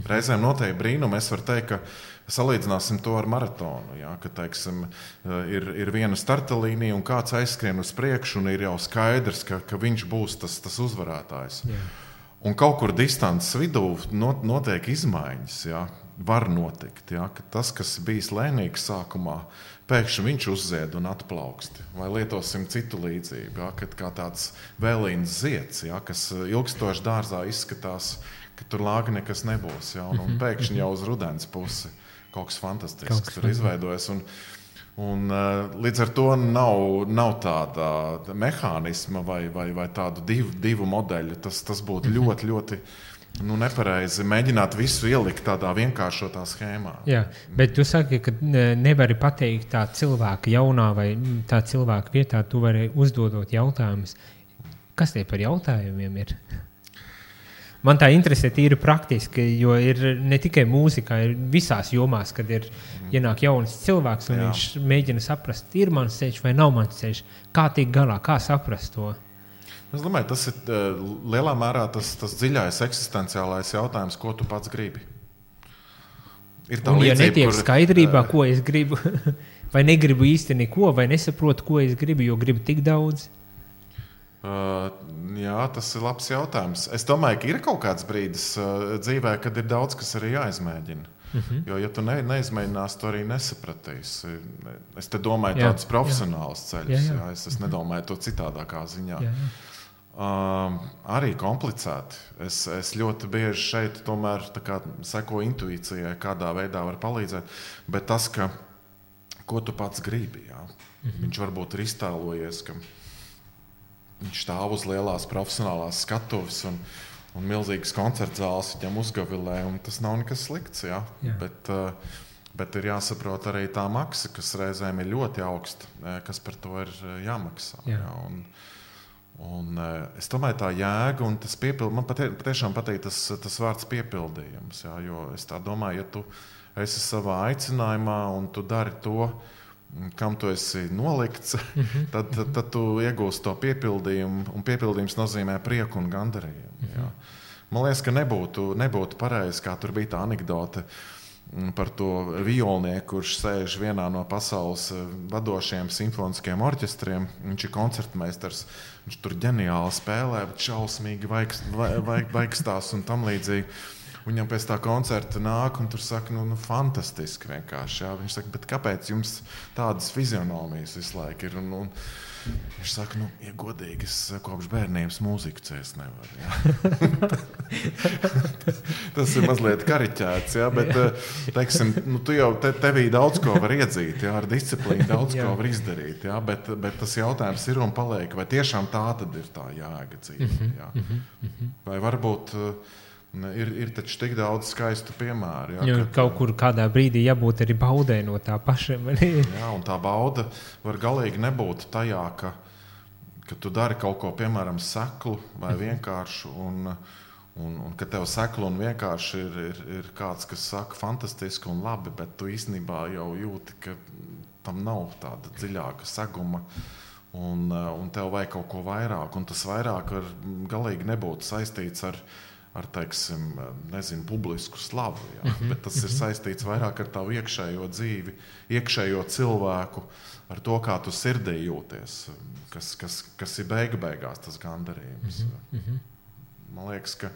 Es varu teikt, ka salīdzināsim to ar maratonu. Ka, teiksim, ir viena starta līnija un kāds aizskrien uz priekšu un ir jau skaidrs, ka viņš būs tas uzvarētājs. Un kaut kur distances vidū notiek izmaiņas, var notikt, ka tas, kas bijis lēnīgs sākumā, pēkšņi viņš uzzied un atplaukst. Vai lietosim citu līdzību, kad kā tāds vēlīns zieds, kas ilgstoši dārzā izskatās, ka tur lāga nekas nebūs. Un pēkšņi jau uz rudens pusi kaut kas fantastisks tur izveidojas. Un līdz ar to nav tāda mehānisma vai tādu divu modeļu. Tas būtu ļoti, ļoti nepareizi mēģināt visu ielikt tādā vienkāršotā schēmā. Jā, bet tu saki, ka nevari pateikt tā cilvēka jaunā vai tā cilvēka vietā, tu vari uzdodot jautājumus. Kas tie par jautājumiem ir? Man tā interesē tīri praktiski, jo ir ne tikai mūzikā, ir visās jomās, kad ir ienāk jauns cilvēks un viņš mēģina saprast, ir mans ceļš vai nav mans ceļš, kā tiek galā, kā saprast to. Es domāju, tas ir lielā mērā tas dziļais eksistenciālais jautājums, ko tu pats gribi. Ir tā un līdzība, ja netiek skaidrībā, ko es gribu, vai negribu īsti neko, vai nesaprotu, ko es gribu, jo gribu tik daudz? Jā, tas ir labs jautājums. Es domāju, ka ir kaut kāds brīdis dzīvē, kad ir daudz, kas arī jāizmēģina. Jo, ja tu neizmēģināsi, tu arī nesapratīsi. Es te domāju tādus profesionālus ceļus. Jā. Es nedomāju to citādākā ziņā. Jā. Arī komplicēti. Es ļoti bieži šeit tomēr sekoju intuīcijai, kādā veidā var palīdzēt. Bet tas, ko tu pats gribi, jā. Viņš varbūt ir iztēlojies, ka viņš stāv uz lielās profesionālās skatuves un milzīgas koncerta zāles viņam uzgavilē, un tas nav nekas slikts. Jā. Bet ir jāsaprot arī tā maksa, kas reizēm ir ļoti augsta, kas par to ir jāmaksā. Jā. Un es domāju, tā jēga un tas man patiešām patīk tas vārds piepildījums. Jā, jo es tā domāju, ja tu esi savā aicinājumā un tu dari to, kam tu esi nolikts, tad tu iegūsi to piepildījumu, un piepildījums nozīmē prieku un gandarījumu. Jā. Man liekas, ka nebūtu pareizi, kā tur bija tā anekdote par to violnieku, kurš sēž vienā no pasaules vadošajiem simfoniskiem orķestriem. Viņš ir koncertmeistars, viņš tur ģeniāli spēlē, bet šausmīgi vaikstās un tam līdzīgi. Viņam pēc tā koncerta nāk un tur saka, fantastiski vienkārši. Jā. Viņš saka, bet kāpēc jums tādas fizionomijas visu laiku ir? Un viņš saka, ja godīgi, es kopš bērnības mūziku ciest nevaru. Jā. Tas ir mazliet kariķēts, jā, bet, teiksim, tu jau tevī daudz ko var iedzīt, jā, ar disciplīnu daudz ko var izdarīt, jā, bet tas jautājums ir un paliek, vai tiešām tā tad ir tā jēga dzīve, jā. Vai varbūt ir taču tik daudz skaistu piemēru. Jā, kaut kur kādā brīdī jābūt arī baudē no tā paša. Jā, un tā bauda var galīgi nebūt tajā, ka tu dari kaut ko, piemēram, seklu vai vienkāršu, un ka tev seklu un vienkārši ir kāds, kas saka fantastiski un labi, bet tu īstenībā jau jūti, ka tam nav tāda dziļāka seguma, un tev vajag kaut ko vairāk, un tas vairāk var galīgi nebūt saistīts ar teiksim, publisku slavu, jā. Bet tas ir saistīts vairāk ar tavu iekšējo dzīvi, iekšējo cilvēku, ar to, kā tu sirdī jūties, kas ir beigās tas gandarījums. Man liekas, ka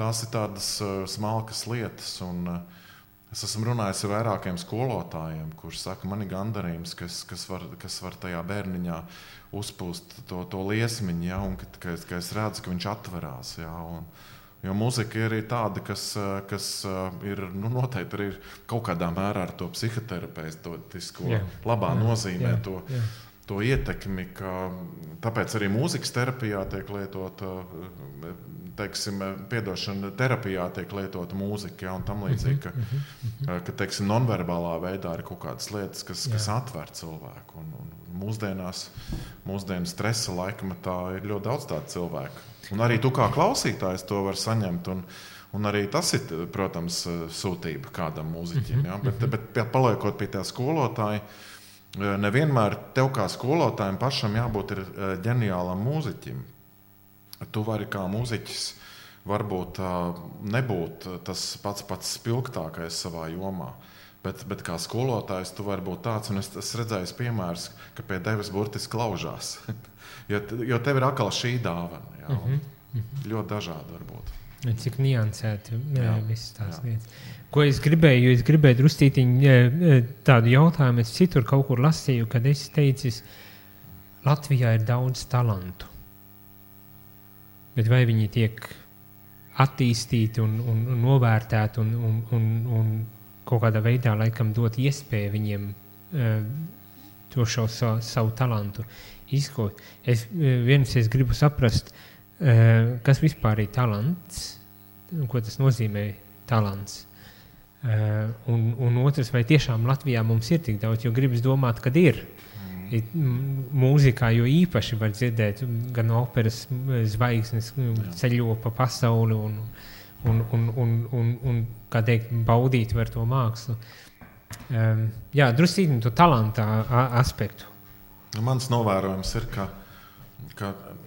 tās ir tādas smalkas lietas, un es esmu runājis ar vairākiem skolotājiem, kurš saka, man ir gandarījums, kas var tajā bērniņā uzpūst to liesmiņu, jā, un ka es redzu, ka viņš atverās, jā, jo mūzika ir arī tāda, kas ir noteikti arī kaut kādā mērā ar to psihoterapeitisko labā nozīmē to ietekmi, ka tāpēc arī mūzikas terapijā tiek lietota, teiksim, terapijā tiek lietota mūzika, jā, un tam līdzīgi, ka teiksim, nonverbālā veidā ir kaut kādas lietas, kas atver cilvēku, un mūsdienu stresa laikmetā ir ļoti daudz tādu cilvēku. Un arī tu kā klausītājs to var saņemt, un arī tas ir, protams, sūtība kādam mūziķim. Ja? Bet paliekot pie tā skolotāja, nevienmēr tev kā skolotājiem pašam jābūt ir ģeniālam mūziķim. Tu vari kā mūziķis varbūt nebūt tas pats spilgtākais savā jomā. Bet kā skolotājs tu vari būt tāds, un es redzēju piemērus, ka pie tevis burtiski klaužās. jo tev ir atkal šī dāvana. Jā, ļoti dažādi var būt. Cik niansēti visas tās lietas. Ko es gribēju drustītiņu tādu jautājumu, es citur kaut kur lasīju, kad es teicis, Latvijā ir daudz talantu. Bet vai viņi tiek attīstīti un novērtēti un kaut kādā veidā laikam dot iespēju viņiem to savu talantu izkot. Es gribu saprast, kas vispār ir talants ko tas nozīmē talants. Un otrs, vai tiešām Latvijā mums ir tik daudz, jo gribas domāt, kad ir. Mūzikā jo īpaši var dzirdēt gan operas zvaigznes ceļo pa pasauli un kā teikt, baudīt var to mākslu. Jā, drusītim to talanta aspektu. Mans novērojums ir, ka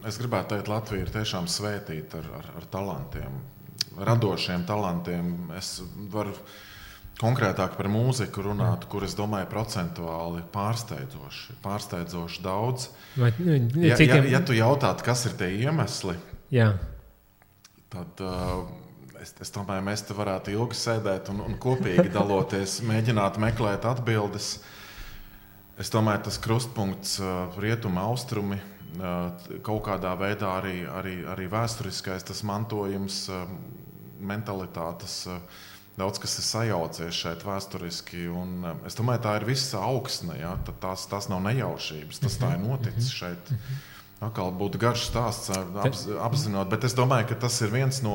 es gribētu teikt, Latvija ir tiešām svētīta ar talantiem, radošiem talantiem. Es varu konkrētāk par mūziku runāt, kur es domāju procentuāli pārsteidzoši daudz. Ja tu jautātu, kas ir tie iemesli, tad es domāju, mēs te varētu ilgi sēdēt un kopīgi daloties, mēģināt meklēt atbildes. Es domāju, tas krustpunkts rietumi, austrumi, kaut kādā veidā arī vēsturiskais tas mantojums, mentalitātes, daudz kas ir sajaucies šeit vēsturiski, un es domāju, tā ir visa augsne, ja? Tās nav nejaušības, tas tā ir noticis šeit. Atkal būtu garš stāsts apzinot, bet es domāju, ka tas ir viens no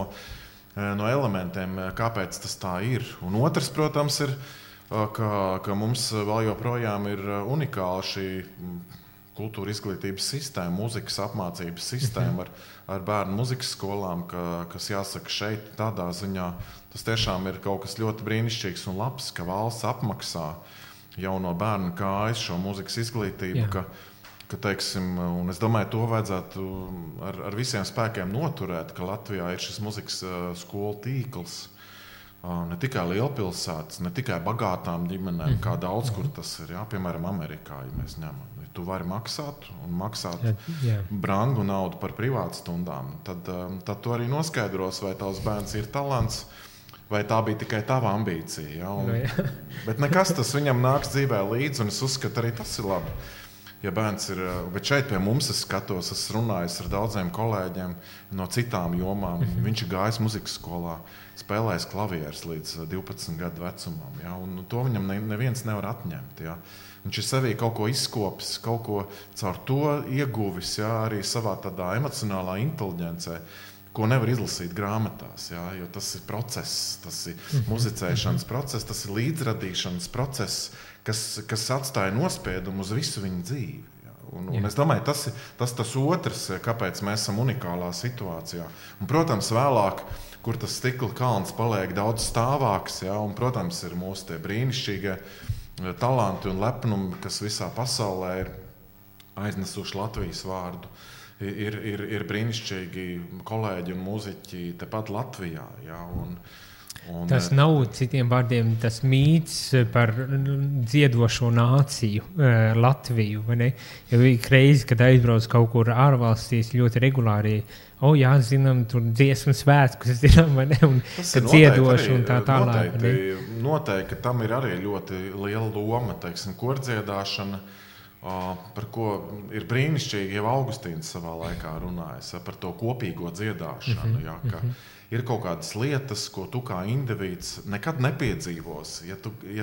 elementiem, kāpēc tas tā ir. Un otrs, protams, ir, ka mums vēl joprojām ir unikāla šī kultūra izglītības sistēma, mūzikas apmācības sistēma ar bērnu mūzikas skolām, kas jāsaka šeit tādā ziņā, tas tiešām ir kaut kas ļoti brīnišķīgs un labs, ka valsts apmaksā jau no bērna kājas šo mūzikas izglītību, ka teiksim, un es domāju, to vajadzētu ar visiem spēkiem noturēt, ka Latvijā ir šis mūzikas skolu tīkls, ne tikai lielpilsētas, ne tikai bagātām ģimenēm, kā daudz, kur tas ir, piemēram, Amerikā, ja mēs ņemam. Tu vari maksāt brangu naudu par privātstundām, tad tu arī noskaidros, vai tavs bērns ir talants, vai tā bija tikai tava ambīcija. Ja? Bet nekas tas viņam nāks dzīvē līdzi, un es uzskatu, arī tas ir labi. Ja bērns ir, bet šeit pie mums es skatos, es runājos ar daudziem kolēģiem no citām jomām. Viņš ir gājis muzikas skolā, spēlējis klavierus līdz 12 gadu vecumam, ja? Un to viņam neviens nevar atņemt. Ja? Viņš ir sevī kaut ko izkopis, kaut ko caur to ieguvis, ja? Arī savā tādā emocionālā inteliģencē, ko nevar izlasīt grāmatās, ja? Jo tas ir process, tas ir muzicēšanas process, tas ir līdzradīšanas process, kas atstāja nospiedumu uz visu viņa dzīvi. Ja? Un es domāju, tas otrs, kāpēc mēs esam unikālā situācijā. Un, protams, vēlāk, kur tas stikla kalns paliek daudz stāvāks, ja? Un, protams, ir mūsu tie brīnišķīgie talanti un lepnumi, kas visā pasaulē ir aiznesuši Latvijas vārdu. Ir brīnišķīgi kolēģi un mūziķi tepat Latvijā. Ja? Tas nav, citiem vārdiem, tas mīts par dziedošo nāciju, Latviju. Ja bija reizi, kad aizbrauc kaut kur ārvalstīs ļoti regulāri, zinām, tur dziesmu svētkus, zinām, un kad dziedoši un tā tālāk. Noteikti, tam ir arī ļoti liela loma, teiksim, kordziedāšana, par ko ir brīnišķīgi jau Augustīns savā laikā runājis, par to kopīgo dziedāšanu, ja, ka ir kaut kādas lietas, ko tu kā indivīds nekad nepiedzīvosi, ja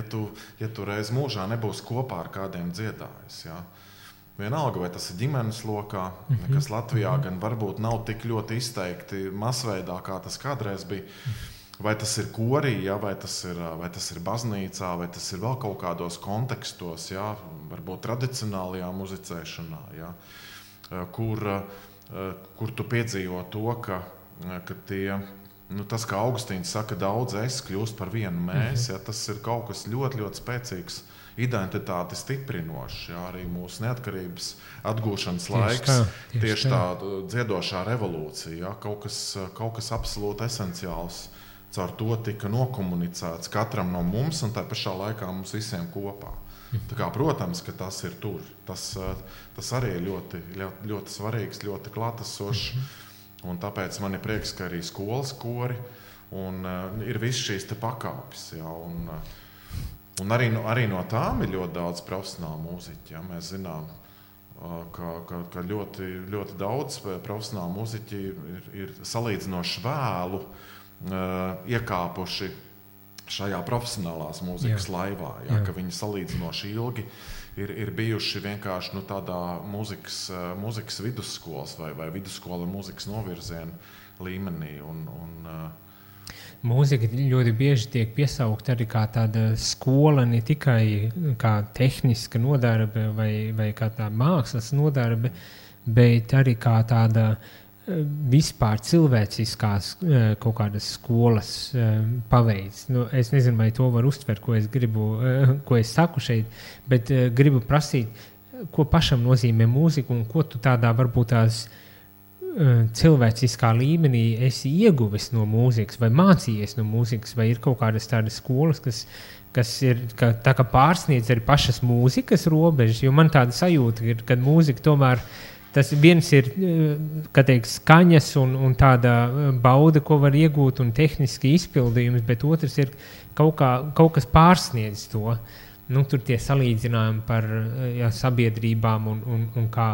tu reiz mūžā nebūs kopā ar kādiem dziedājis, ja. Vienalga, vai tas ir ģimenes lokā, kas Latvijā gan varbūt nav tik ļoti izteikti masveidā, kā tas kādreiz bija, vai tas ir korī, ja, vai tas ir baznīcā, vai tas ir vēl kaut kādos kontekstos, ja, varbūt tradicionālajā muzicēšanā, ja, kur tu piedzīvo to, ka tie, tas, kā Augustīns saka, daudz es kļūst par vienu mēs, ja, tas ir kaut kas ļoti, ļoti spēcīgs, identitāti stiprinošs, ja, arī mūsu neatkarības atgūšanas laiks, tieši tā dziedošā revolūcija, ja, kaut kas absolūti esenciāls. Caur to tika nokomunicēts katram no mums un tā pašā laikā mums visiem kopā. Tā kā, protams, ka tas ir tur. Tas arī ir ļoti, ļoti svarīgs, ļoti klātesošs. Un tāpēc man ir prieks, ka arī skolas kori un ir viss šīs te pakāpes. Ja, un arī no tām ir ļoti daudz profesionālu mūziķu. Ja, mēs zinām, ka ļoti, ļoti daudz profesionālu mūziķi ir salīdzinoši vēlu iekāpuši šajā profesionālās mūzikas laivā, ja, ka viņi salīdzinoši ilgi ir bijuši vienkārši tādā mūzikas vidusskolas vai vidusskola mūzikas novirzienu līmenī. mūzika ļoti bieži tiek piesaukta arī kā tāda skola, ne tikai kā tehniska nodarbe vai kā tā mākslas nodarbe, bet arī kā tāda vispār cilvēciskās kaut kādas skolas paveids. Nu, es nezinu, vai to var uztvert, ko es saku šeit, bet gribu prasīt, ko pašam nozīmē mūzika un ko tu tādā varbūt tās cilvēciskā līmenī esi ieguvis no mūzikas vai mācījies no mūzikas, vai ir kaut kādas tādas skolas, kas ir tā kā pārsniedz arī pašas mūzikas robežas, jo man tāda sajūta ir, kad mūzika tomēr tas viens ir, kā teikt, skaņas un tāda bauda, ko var iegūt un tehniski izpildījums, bet otrs ir kaut kas pārsniedz to. Nu, tur tie salīdzinājumi par sabiedrībām un kā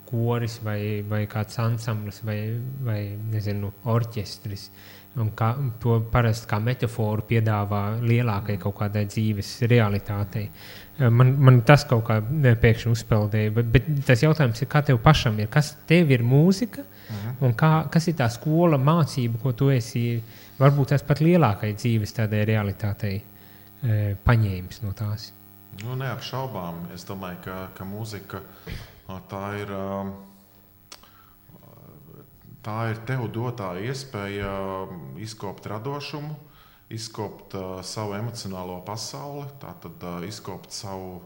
koris vai kāds ansamblis vai nezinu, orķestris. Un to parasti kā metaforu piedāvā lielākai kaut kādai dzīves realitātei. Man tas kaut kā pēkšņi uzpeldēja, bet tas jautājums ir, kā tev pašam ir, kas tev ir mūzika un kas ir tā skola mācība, ko tu esi varbūt tas pat lielākai dzīves tādai realitātei paņēmis no tās? Nu, neapšaubām. Es domāju, ka mūzika tā ir tev dotā iespēja izkopt radošumu, izkopt savu emocionālo pasauli, tātad izkopt savu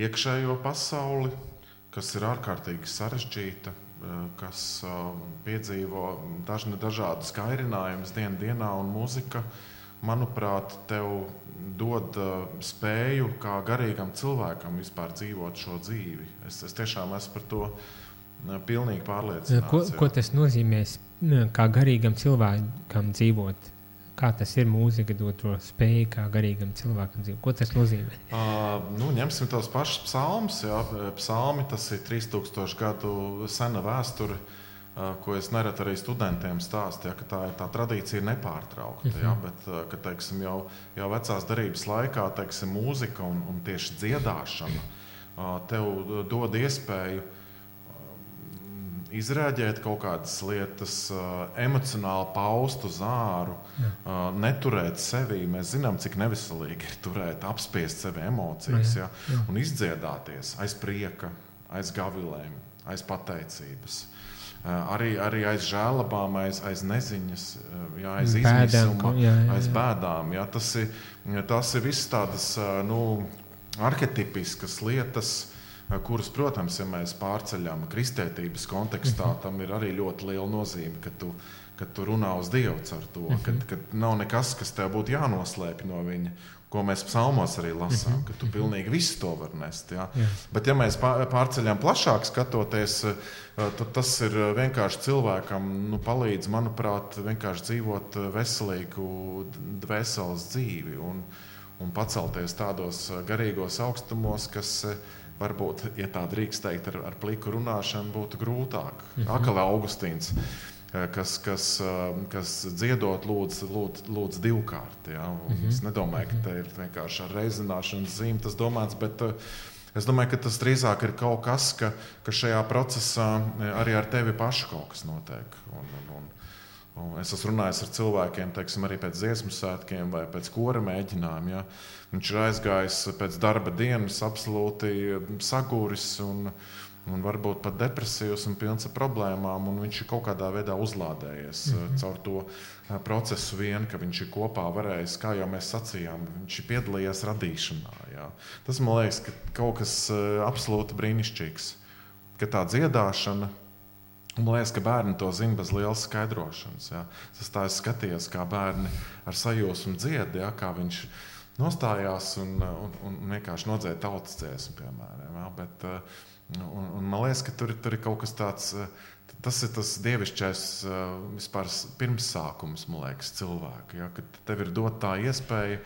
iekšējo pasauli, kas ir ārkārtīgi sarežģīta, kas piedzīvo dažādus kairinājumus dienā, un mūzika, manuprāt, tev dod spēju kā garīgam cilvēkam vispār dzīvot šo dzīvi. Es tiešām esmu par to pilnīgi pārliecināts. Ko tas nozīmē kā garīgam cilvēkam dzīvot? Kā tas ir mūzika dot to spēju kā garīgam cilvēkam dzīvot? Ko tas nozīmē? Ņemsim tos pašus psalmus. Psalmi, tas ir 3000 gadu sena vēsture, ko es nereti arī studentiem stāstu, ka tā tradīcija ir nepārtraukta. Bet, ka, teiksim, jau vecās derības laikā, teiksim, mūzika un tieši dziedāšana tev dod iespēju izrēģēt kaut kādas lietas, emocionāli paust uz āru, neturēt sevi. Mēs zinām, cik neveselīgi ir turēt, apspiest sevi emocijas, un izdziedāties aiz prieka, aiz gavilēm, aiz pateicības. Arī aiz žēlabām, aiz neziņas, aiz izmisuma, aiz bēdām. Tas ir viss tādas arhetipiskas lietas, kuras, protams, ja mēs pārceļam kristietības kontekstā, tam ir arī ļoti liela nozīme, ka tu runā uz Dievu caur to, ka nav nekas, kas tev būtu jānoslēpj no viņa, ko mēs psalmos arī lasām, ka tu pilnīgi visu to var nest. Bet ja mēs pārceļam plašāk skatoties, tad tas ir vienkārši cilvēkam palīdz, manuprāt, vienkārši dzīvot veselīgu dvēseles dzīvi un pacelties tādos garīgos augstumos, kas varbūt, ja tā drīkst teikt, ar pliku runāšanu būtu grūtāk. Akali Augustīns, kas dziedot lūdz divkārt. Es nedomāju, ka te ir vienkārši ar reizināšanas zīmi tas domāts, bet es domāju, ka tas drīzāk ir kaut kas, ka šajā procesā arī ar tevi pašu kaut kas notiek. Es esmu runājis ar cilvēkiem, teiksim, arī pēc dziesmu svētkiem vai pēc kora mēģinājuma. Viņš ir aizgājis pēc darba dienas absolūti saguris un varbūt pat depresīvs un pilns ar problēmām, un viņš ir kaut kādā veidā uzlādējies caur to procesu vien, ka viņš ir kopā varējis, kā jau mēs sacījām, viņš ir piedalījies radīšanā. Tas, man liekas, ka kaut kas absolūti brīnišķīgs, ka tā dziedāšana, un man liekas, ka bērni to zina bez lielas skaidrošanas. Es skatījos, kā bērni ar sajūsmu dzied, kā viņš nostājās un vienkārši nodzēja tautas dziesmu, piemēram. Bet, un man liekas, ka tur ir kaut kas tāds, tas ir tas dievišķais vispār pirmsākums, man liekas, cilvēka. Kad tev ir dot tā iespēja,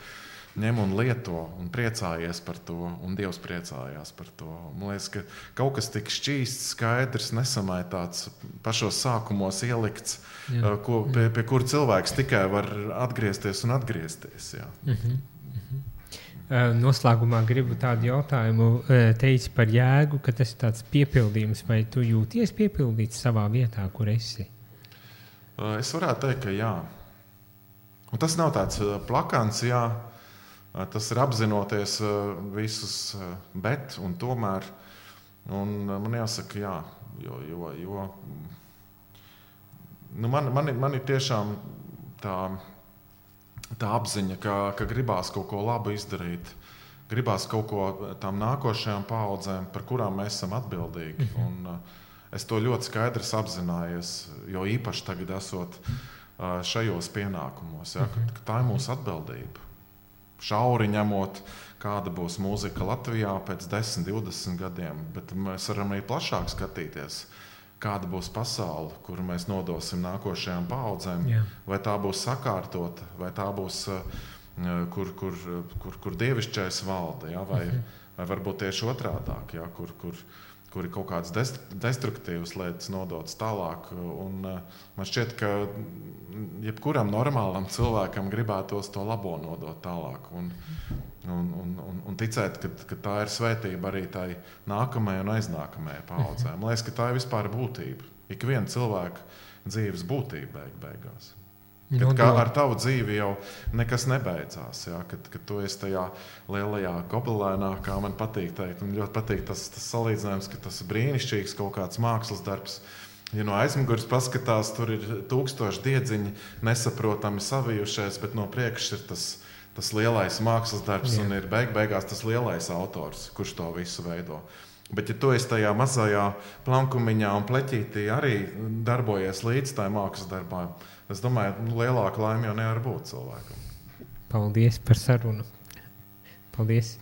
ņem un lieto un priecājies par to, un Dievs priecājās par to. Man liekas, ka kaut kas tik šķīsts, skaidrs, nesamaitāts, pašos sākumos ielikts, pie kura cilvēks tikai var atgriezties un atgriezties. Noslēgumā gribu tādu jautājumu teici par jēgu, ka tas ir tāds piepildījums, vai tu jūties piepildīts savā vietā, kur esi? Es varētu teikt, ka jā. Un tas nav tāds plakans, jā. Tas ir apzinoties visus bet un tomēr. Un man jāsaka, jā, jo nu man ir tiešām tā apziņa, ka gribās kaut ko labu izdarīt. Gribās kaut ko tām nākošajām paaudzēm, par kurām mēs esam atbildīgi. Un es to ļoti skaidrs apzinājies, jo īpaši tagad esot šajos pienākumos, ja, ka tā ir mūsu atbildība. Šauri ņemot, kāda būs mūzika Latvijā pēc 10, 20 gadiem, bet mēs varam arī plašāk skatīties, kāda būs pasaule, kuru mēs nodosim nākošajām paaudzēm, vai tā būs sakārtota, vai tā būs, kur dievišķais valda, ja, vai varbūt tieši otrādāk, ja, kur ir kaut kādas destruktīvas lietas nodotas tālāk. Un man šķiet, ka jebkuram normālam cilvēkam gribētos to labo nodot tālāk. Un ticēt, ka tā ir svētība arī tai nākamajai un aiznākamajai paaudzēm. Man liekas, ka tā ir vispār būtība. Ik viena cilvēka dzīves būtība beigās. Kad ar tavu dzīvi jau nekas nebeidzās, ja? Kad tu esi tajā lielajā gobelēnā, kā man patīk teikt. Man ļoti patīk tas salīdzinājums, ka tas ir brīnišķīgs kaut kāds mākslas darbs. Ja no aizmugures paskatās, tur ir 1000 diedziņi nesaprotami savijušies, bet no priekšas ir tas lielais mākslas darbs un ir beigās tas lielais autors, kurš to visu veido. Bet ja tu esi tajā mazajā plankumiņā un pleķītī arī darbojies līdz tai mākslas darbā, es domāju, lielāka laime jau nevar būt cilvēkam. Paldies par sarunu. Paldies.